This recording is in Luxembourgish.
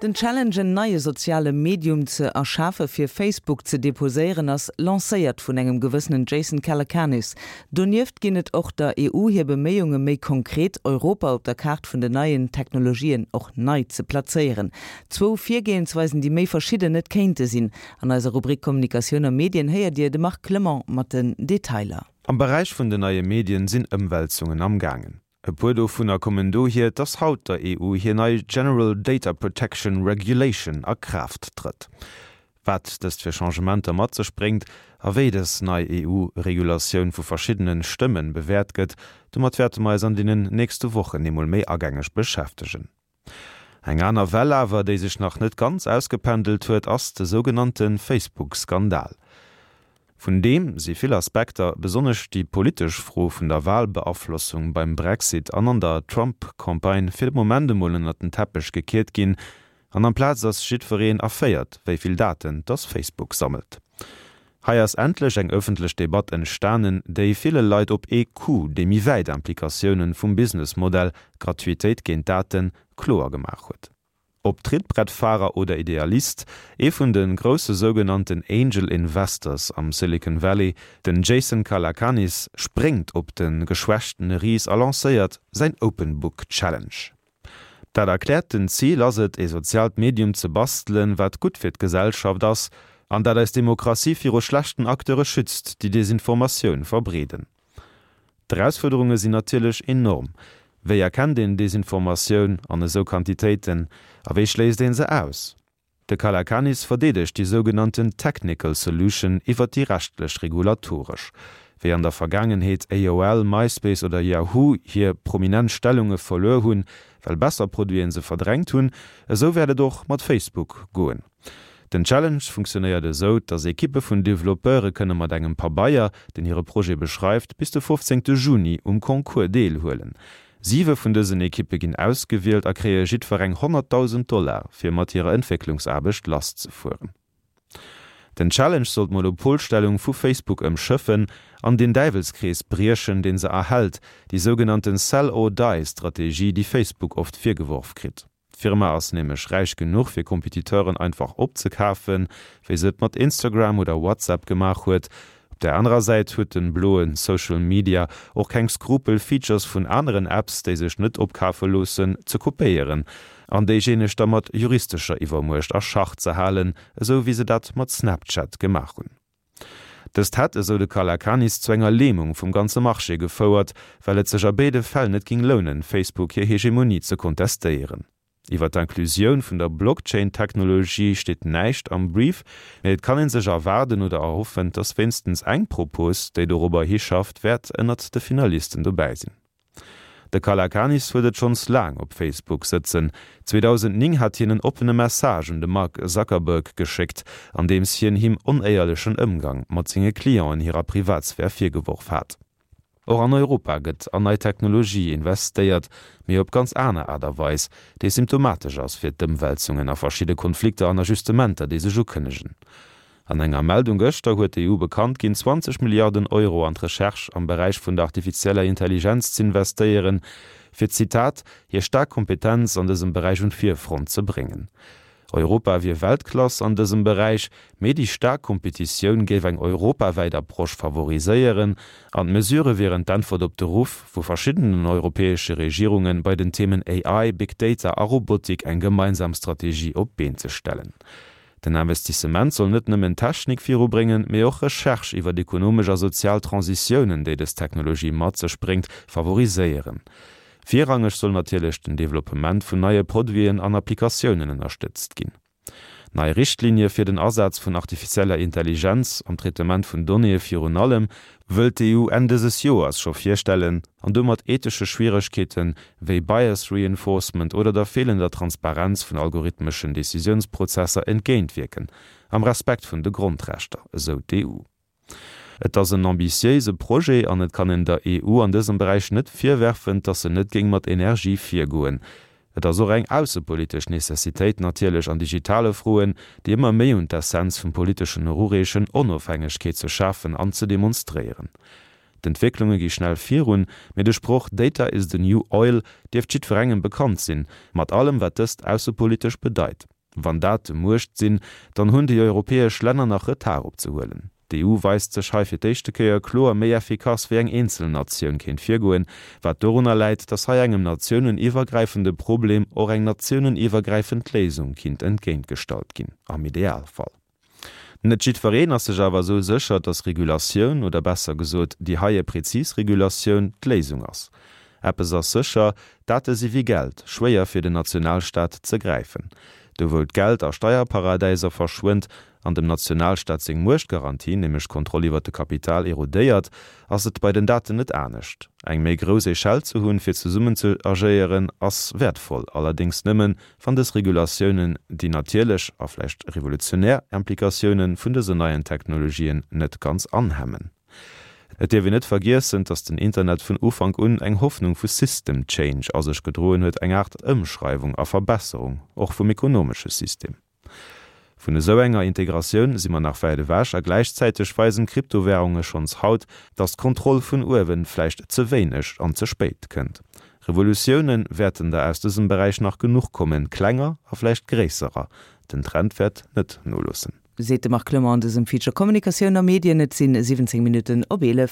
Den Challenge en neie soziale Medium ze erschafe fir Facebook ze deposéieren ass lancéiert vun engem gewëssenen Jason Calacanis. Donieft ginn et och der EU hir Beméiunge méi konkret Europa op der Kaart vun den neien Technologien och nei ze plazéieren. Zwou Virgehensweisen déi méi verschidden net kéinte sinn. An eiser Rubrik Kommunikatioun a Medien héiert Dir de Marc Clement mat den Detailer. Am Beräich vun den neie Medien sinn Ëmwälzungen am gaangen. E puer dovunner kommen dohier, dass haut der EU hir nei General Data Protection Regulation a Kraaft trëtt. Wat dëst fir Changementer mat sech bréngt a wéi dës nei EU-Regulatioun vu verschiddene Stëmmen bewäert gëtt, domat wäerte mer eis an deenen nächste Wochen eemol méi agängeg beschäftegen. Eng aner Well awer, déi sech nach net ganz ausgependelt huet, ass de sougenannte Facebook-Skandal. Vun deem si vill Aspekter, besonnesch déi politesch Fro vun der Walbeaflossung beim Brexit an an der Trump-Campagne, fir de Moment emol ënnert den Teppech gekiert ginn. An amplaz ass jiddwereen erféiert, wéi vill Daten dass Facebook sammelt. Hei ass endlech eng ëffentlech Debatt entstanen, déi ville Leit op ee Coup déi méi wäit Implikatiounen vum Businessmodell Gratuitéit géint Daten kloer gemaach huet. Ob Trittbrettfahrer oder Idealist, ee vun de grousse sougenannten Angel Investors am Silicon Valley, den Jason Calacanis, spréngt op de geschwächtene Ris a lancéiert säin Open Book Challenge. Dat erkläerten Zil ass et, ee soziaalt Medium ze bastelen, wat gutt fir d'Gesellschaft ass an dat eis Demokratie viru schlechten Acteure schützt, déi Desinformatioun verbreeden. D'Erausfuerderunge sinn natierlech enorm. Wéi erkennt een Desinformatioun an esou Quantitéiten a wéi schléisst ee se aus? De Calacanis verdeedegt déi sougenannten technical solution iwwer déi rechtlech regulatoresch. Wéi an der Vergaangenheet AOL, MySpace oder Yahoo hir prominent Stellunge verluer hunn, well besser Produiten se verdrängt hunn, esou wäert et och mat Facebook goen. Den Challenge funktionéiert esou, dass Ekippe vun Developpeure kënne mat engem Pabeier, deen hire Projet beschreift, bis de 15 Juni um Concours deelhuelen. Siwe vun dësen Ekippe ginn ausgewielt a kréie jiddwereng 100.000 Dollar, fir mat hirer Entwécklungsaarbecht lasszefueren. Den Challenge soll d'Monopolstellung vu Facebook ëmschëffen an den Däiwelskrees briechen, dee se erhält, déi sougenannte Sell-or-die-Strategie, déi Facebook oft virgeworf kritt. D'Firma ass nämlech räich genuch fir Competiteuren einfach opzekafen, wéi se et mat Instagram oder WhatsApp gemaach huet. Op der anerer Säit huet den bloen Social Media och keng Skrupel Features vun aneren Apps, déi sech net opkafe loossen, ze kopéieren an déijéineg da mat juristescher Iwwermuecht a Schach ze halen, esou wéi se dat mat Snapchat gemaach hunn. Dëst hätt, esou de Calacanis, zu enger Lämung vum ganze Marché gefouert, well et sech a béide Fäll net ging lounen, Facebook hir Hegemonie ze kontestéieren. Iwwer d'Inclusioun vun der Blockchain-Technologie steet näischt am Brief, mee et kann ee sech erwaarden oder erhoffen, dass wéinstens eng Propos, déi dorobber hischafft, wäert ënnert de Finalisten dobäi sinn. De Calacanis huet et schonns laang op Facebook sëtzen. 2009 hat hien en oppene Message un de Mark Zuckerberg geschéckt, an deems hien him onéierlechen Ëmgang mat senge Clienten hirer Privatsphär virgeworf hat. Och an Europa gëtt an nei Technologie investéiert, mee op ganz aner Aart a Weis, déi symptomatesch ass fir d'Ëmwälzungen a verschidde Konflikter an Ajustementer, déi sech ukënnegen. An enger Meldung gëschter huet d'EU bekannt ginn, 20 Milliarden Euro an d'Recherche am Beräich vun der artifizieller Intelligenz z'investéieren, fir, Zitat, hir staark Kompetenz an dësem Beräich un d'Virfront ze bréngen. Europa wier Weltklass an dësem Beräich, mee déi staark Kompetitioun géif eng europawäit Approche favoriséieren an d'Mesurë wieren d'Äntwert op de Ruff vu verschiddenen europäesche Regierungen, bei den Themen AI, Big Data a Robotik eng gemeinsam Strategie op d'Been ze stellen. Den Investissement soll net nëmmen d'Technik virubréngen, mee och Recherche iwwer ekonomesch a sozial Transitiounen, déi dës Technologie mat sech bréngt, favoriséieren. Virrangeg soll natierlech den Developpement vun neie Produiten an Applikatiounen ënnerstëtzt ginn. Nei Richtlinie fir den Asaz vun artifizieller Intelligenz am Traitement vun Donnéeë virun allem wëllt d'EU Enn dëses Joers scho virstellen an domat ethesche Schwieregkeete wéi Bias Reinforcement oder der feelender Transparenz vun algorithmeschen Decisiounsprozesser entgéintwierken, am Respekt vun de Grondrechter, esou d'EU. Et ass en ambitiéise Projet an et kann een der EU an dësem Beräich net virwerfen, dass se net géing mat Energie virgoen. Et ass och eng aussepolitesch Necessitéit natierlech an digitale Froen, déi ëmmer méi un d'Essenz vum politeschen erureechen, Onofhängegkeet ze schafen an ze demonstréieren. D'Entwécklunge gi schnell virun, mee de Sproch Data is the new oil dierft jiddwerengem bekannt sinn, mat allem wat dëst aussepolitesch bedeit. Wann Date Muecht sinn, dann hunn déi europäesch Länner nach Retard opzehuelen. D'EU weist sech hei fir d'éischte Kéier kloer méi effikass wéi eng eenzel Natioun kéint virgoen, wat dorunner läit, datt hei engem natiouneniwwergräifende Problem och eng natiouneniwwergräifend Léisung kinnt entgéintgestallt ginn, am Idealfall. Net jiddwereen ass sech awer esou sécher, datt Regulatioun, oder besser gesot déi heie prezis Regulatioun, d'Léisung ass. Eppes ass sécher, Date si wéi Geld, schwéier fir den Nationalstaat ze gräifen. Do wou d'Geld a Steierparadäiser verschwënnt an dem Nationalstaat seng Muechtgarantie, nämlech d'Kontroll iwwer de Kapital, erodéiert, ass et bei den Daten net anescht. Eng méi grouss Echelle ze hunn, fir zesummen ze agéieren, ass wäertvoll, allerdéngs nëmmen, wann dës Regulatiounen déi natierlech a vläicht revolutionär Implikatioune vun dësen neien Technologien net ganz anhemmen. Et dierf een net vergiessen, dass den Internet vun Ufank un eng Hoffnung vu System Change a sech gedroen huet, eng Aart Ëmschreiwung a Verbesserung och vum ekonomesche System. Vun esou enger Integratioun si mer nach wäit ewech a gläichzäiteg weisen d'Kryptowärunge schonns haut, dass d'Kontroll vun uewen vläicht ze wéineg an ze spéit kënnt. Revolutioune wäerten der aus dësem Beräich nach genuch kommen, klenger a vläicht gréisserer. Den Trend wäert net noloossen. Seet de Marc Clement an dësem Feature Kommunikatioun a Medien. Et sinn 17 Minutten op 11.